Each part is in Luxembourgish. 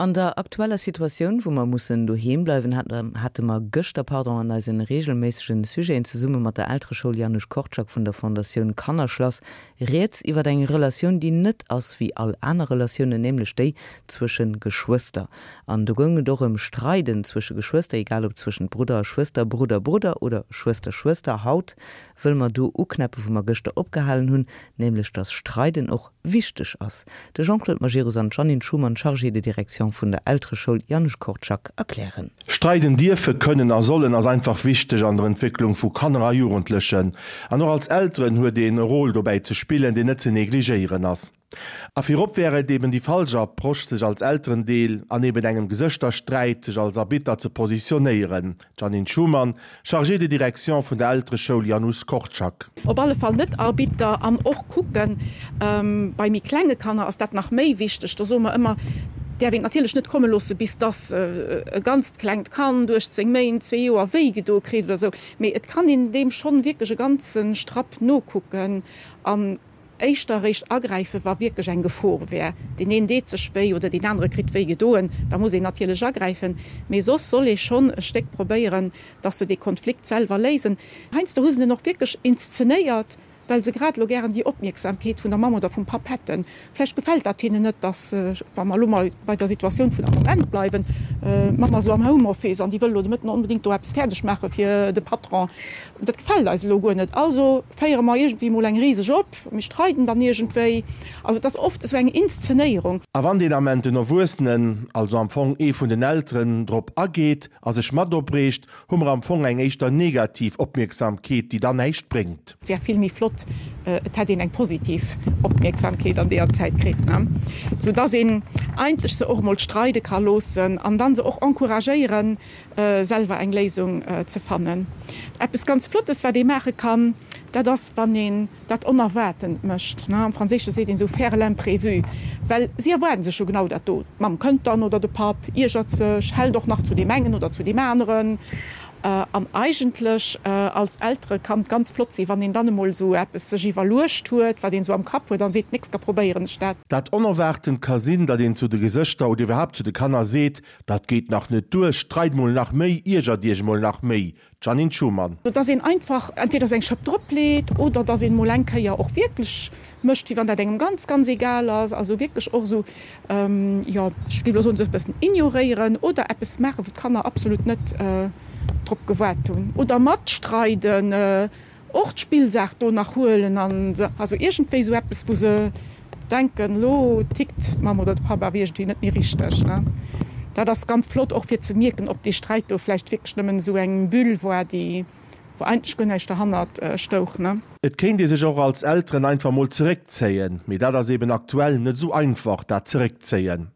An der aktueller Situatioun, wou mer mussen doheem bleiwen, hate mer gëschter, pardon, an eisen regelméissegen Sujeten zesumme mat der Eltereschoul Janusz Korczak vun der Fondatioun Kannerschlass rieds iwwer eng Relatioun, déi net ass wéi all aner Relatiounen, nämlech déi zwësche Geschwëster. An do goung et och ëm Streiden zwësche Geschwëster, egal ob zwëschent Brudder a Schwëster, Brudder, Brudder oder Schwëster, Schwëster. Haut wëlle mer do uknäppe wou mer gëschter opgehalen hunn, nämlech dass Streiden och wichteg ass. De Jean-Claude Majerus an d'Jeannine Schumann, Chargée de direction vun der Eltereschoul Janusz Korczak, erklären. Streiden dierfe, kënnen a sollen ass einfach wichteg an der Entwécklung vu Kanner a Jugendlechen. An och als Elteren huet een e Rôle dobäi ze spillen, deen net ze negligéieren ass. A virop wär et eben déi falsch Approche, sech als Elterendeel an eben engem Gesëschtersträit sech als Arbitter ze positionéieren. D'Jeannine Schumann, Chargée de direction vun der Eltereschoul Janusz Korczak. Op alle Fall net Arbitter an och kucken, bei méi klenge Kanner ass dat nach méi wichteg, do soe mer ëmmer, däerf een et natierlech net komme loosse bis dass e ganzt klengt Kand, 18 Méint, zwee Joer, wéi gedo kritt oder esou, mee et kann een deem schonn wierklech e ganze Strapp nokucken an Éischter eréischt agräifen, wa wierklech eng Gefor wär. Deen een deet sech wéi oder deen anere kritt wéi gedoen, da muss een natierlech agräifen. Mee soss soll ee schonn e Stéck probéieren, dass se dee Konflikt selwer léisen. Heiansdo hu se en och wierklech inszenéiert, well se grad elo gären déi Opmierksamkeet vun der Mamm oder vum Papp hätten. Vläicht gefält dat hinnen net, dass, wa mer elo mol bei der Situatioun vun am Moment bleiwen, d'Mamm ass elo am Homeoffice an déi wëll elo de Mëtten onbedéngt do eppes fäerdeg maache fir de Patron. Dat gefält eis elo guer net, also féiere mer iergendwéi mol eng riseg op, mir streiden dann iergendwéi. Also et ass oft esou eng Inszenéierung. A wann deen Ament den Erwuessenen, also am Fong ee vun den Elteren, drop ageet a sech mat opreegt, hu mer am Fong eng éischter negativ Opmierksamkeet, déi dann näischt bréngt. Et wär vill méi flott, et hätt een eng positiv Opmierksamkeet an deeër Zäit kritt, ne? Sou dass een eigentlech se och emol streide ka loossen an dann se och encouragéieren, selwer eng Léisung ze fannen. Eppes ganz Flottes, wat ee maache kann, dat ass, wann een dat Onerwaartent mécht. Am Franséische seet een esou faire l'imprévu, well si erwaarden sech jo genau dat do. D'Mamm kënnt dann oder de Papp iergert sech, hält och nach zu deem engen oder zu deem aneren. An eigentlech als Eltere kann et ganz flott sinn, wann een dann emol esou eppes sech iwwerluecht huet, wat een esou am Kapp huet, an seet, d'nächst da probéieren ech dat. Dat Onerwaartent ka sinn, datt een zu de Gesëschter oder iwwerhaapt zu de Kanner seet, Dat geet nach net duer, streit mol nach méi, iergert iech mol nach méi. Jeannine Schumann. Dass een einfach entweder sou eng Schëpp drop leet oder dass een mol eng Kéier och wierklech mécht, wéi wann dat engem ganz, ganz egal ass. Also wierklech och esou, jo, ech géif elo soen, sou e bëssen ignoréieren oder eppes maachen, wou d'Kanner absolut net drop gewaart hunn oder matstreiden. Och d'Spillsaach do nach huelen an also iergendwéi sou eppes wou se denken, lo tickt d'Mamm oder de Papp awer iergendwéi net méi richteg, ne. Dat ass ganz flott och fir ze mierken, ob dee Sträit do vläicht wierklech nëmmen esou eng Bulle war, déi wou eigentlech guer näischt derhannert stouch, ne. Et kéint ee sech och als Elteren einfach mol zeréckzéien, mee dat ass eben aktuell net esou einfach, dat Zeréckzéien.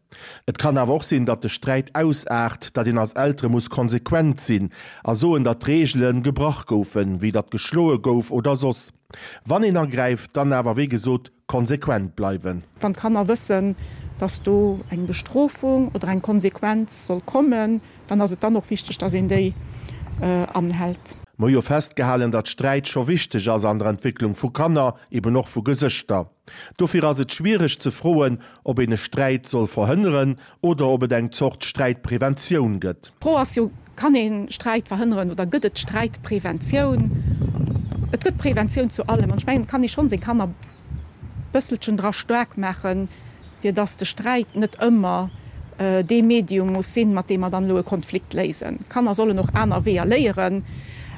Et kann awer och sinn, datt de Sträit ausaart, datt een als Eltere muss konsequent sinn a soen, datt d'Reegele gebrach goufen, wéi datt geschloe gouf oder soss. Wann een agräift, dann awer wéi gesot konsequent bleiwen. Wann d'Kanner wëssen, datt do eng Bestrofung oder eng Konsequenz soll kommen, dann ass et dann och wichteg, datt een déi anhält. Mer hu jo festgehalen, datt Sträit scho wichteg ass an der Entwécklung vu Kanner, eben och vu Gesëschter. Dofir ass et schwiereg ze froen, ob een e Sträit soll verhënneren oder ob et eng Zort Sträitpreventioun gëtt. D'Fro ass jo, Kann ee Sträit verhënneren oder gëtt et Sträitpreventioun? Et gëtt Preventioun zu allem an ech mengen, et kann ee schonn seng Kanner bësselchen dra staark maachen, fir dass de Sträit net ëmmer dee Medium muss sinn, mat deem mer dann elo e Konflikt léisen. D'Kanner sollen och aner Weeër léieren.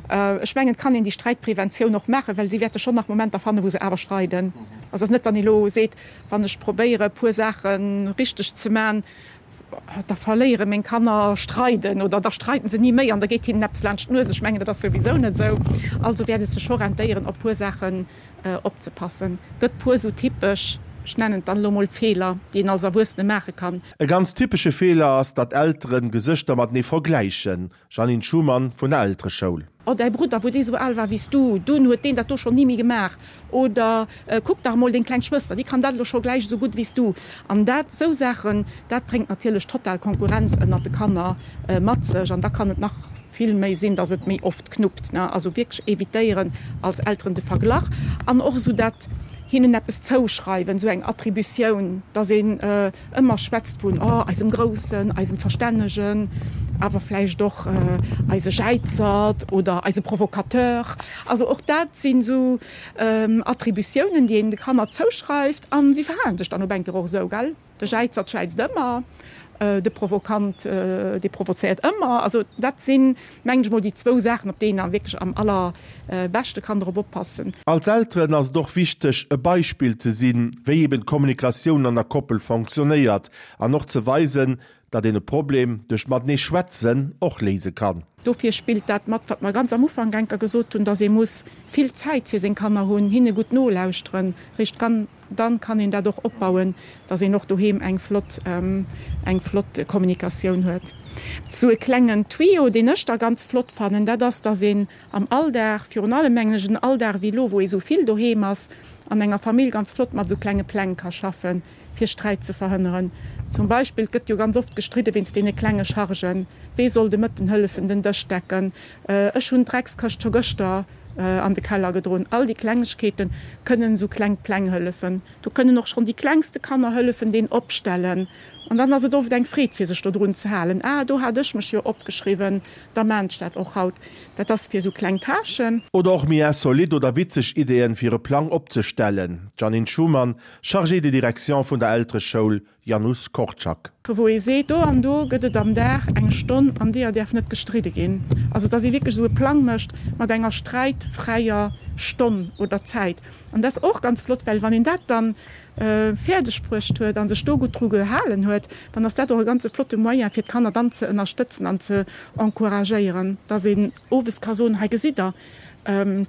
Ech mengen, et kann een déi Sträitpreventioun och maachen, well si wäerte schonn nach Momenter fannen, wou se awer streiden. Also et ass net, wann ee elo seet, wann ech probéiere e puer Saache richteg ze man, da verléiere meng Kanner streiden oder da streiden se ni méi an da geet hinnen eppes laanscht d'Nues. Ech mengen, dat ass souwisou net esou. Also wäert et sech scho rentéieren, op e puer Saachen opzepassen. Gëtt puer sou typesch, ech nennen et dann elo mol Feeler, déi een als Erwuessene maache kann. E ganz typesche Feeler ass, datt Elteren Gesëschter matenee vergläichen. Jeannine Schumann vun der Eltereschoul. Oh, däi Brudder, wou dee sou al war wéi s du, dunn huet deen dat do schonn ni méi gemaach. Oder kuck dach emol deng kleng Schwëster, déi kann dat elo scho gläich esou gutt wéi s du. An dat, sou Saachen, dat bréngt natierlech total Konkurrenz ënnert de Kanner mat sech. An da kann et nach vill méi sinn, dass et méi oft knuppt, ne. Also wierklech evitéieren als Elteren de Verglach an och esou dat. Hinnen eppes zouschreiwen, esou eng Attributioun, dass een ëmmer schwätzt vun, oh, eisem Groussen, eisem Verstännegen, awer vläicht och eise Jäizert oder eise Provocateur. Also och dat sinn esou Attributiounen, déi een de Kanner zouschreift a si verhalen sech dann op eng Kéier och esou, gell? De Jäizert jäizt ëmmer, de Provokant, dee provozéiert ëmmer. Also dat sinn, mengen ech mol, déi zwou Saachen, op déi een wierklech am allerbeschte kann drop oppassen. Als Elteren ass et och wichteg, e Beispill ze sinn, wéi eben d'Kommunikatioun an der Koppel fonctionnéiert an och ze weisen, datt een e Problem duerch matenee schwätzen och léise kann. Dofir spillt dat mat, wat mer ganz am Ufank enker gesot hunn, datt ee muss vill Zäit fir seng Kanner hunn, hinne gutt nolauschteren, réischt kann. Dann kann een dat och opbauen, dass een och doheem eng flott, eng flott Kommunikatioun huet. Sou e klengen Tuyau, deen ech da ganz flott fannen, dat ass, dass een am Alldag, virun allem mengen ech en Alldag wéi elo, wou ee sou vill doheem ass, an enger Famill ganz flott mat esou klenge Pläng ka schaffen, fir Sträit ze verhënneren. Zum Beispill, et gëtt jo ganz oft gestridde wéinst deene klenge Chargen, Wee soll de Mëtten hëllefen den Dësch decken? Ech hunn d'Dreckskëscht scho gëschter an de Keller gedroen. All déi Klengegkeete kënnen esou kleng Pläng hëllefen. Do kënnen och schonn déi klengste Kanner hëllefen, deen opstellen. An dann ass et oft eng Freed, fir sech dodrun ze halen. Ah, do hat ech mech jo opgeschriwwen, da maan ech dat och haut. Dat ass fir esou kleng Tâchen. Oder och méi insolite oder witzeg Ideeën, fir e Plang opzestellen. D'Jeanine Schumann, Chargée de direction vun der Eltereschoul Janusz Korczak. Wou ee seet, do an do gëtt et am Dag eng Stonn, an deeër däerf net gestridde ginn. Also dass ee wierklech esou e Plang mécht mat enger sträitfräier Stonn oder Zäit. An dat ass och ganz flott, well wann een dat dann fäerdeg bruecht huet a sech do gutt dru gehalen huet, dann ass dat och e ganze flotte Moyen, fir d'Kanner dann ze ënnerstëtzen an ze encouragéieren, dass een owes ka soen, hei gesitt Der,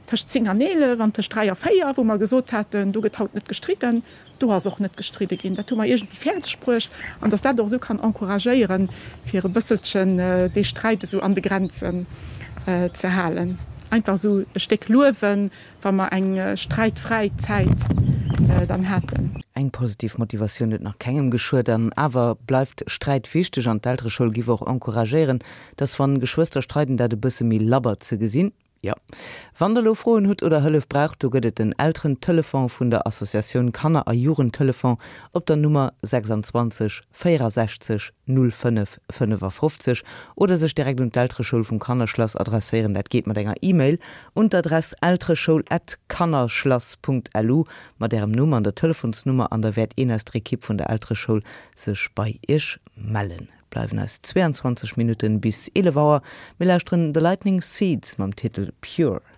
tëscht 10 an 11 an tëscht 3 a 4, wou mer gesot haten, do gëtt haut net gestridden, Do ass och net gestridde ginn. Dat hu mer iergendwéi fäerdeg bruecht. An datt dat och esou kann encouragéieren, fir e bësselchen dee Sträit esou an de Grenzen ze halen. Einfach esou e Stéck luewen, wa mer eng sträitfräi Zäit dann haten. Eng positiv Motivatioun huet nach kengem geschuet. An awer bleift Sträit wichteg an d'Eltereschoul giff och encouragéieren, datt wann Geschwëster streiden, dat e bësse méi labber ze gesinn. Jo. Wann der elo Froen hutt oder Hëllef braucht, do gëtt et den Elterentelefon vun der Associatioun Kanner a Jugendtelefon op der Nummer 26 64 05 55 oder sech direkt un d'Eltereschoul vum Kannerschlass adresséieren. Dat geet mat enger E-Mail un d'Adress eltereschoul at kannerschlass.lu mat ärem Numm an der Telefonsnummer an da wäert een aus der Ekipp vun der Eltereschoul sech bei iech mellen. Bleiwen eis 22 Minutten bis 11 Auer. Mir lauschteren The Lightning Seeds mam Titel Pure.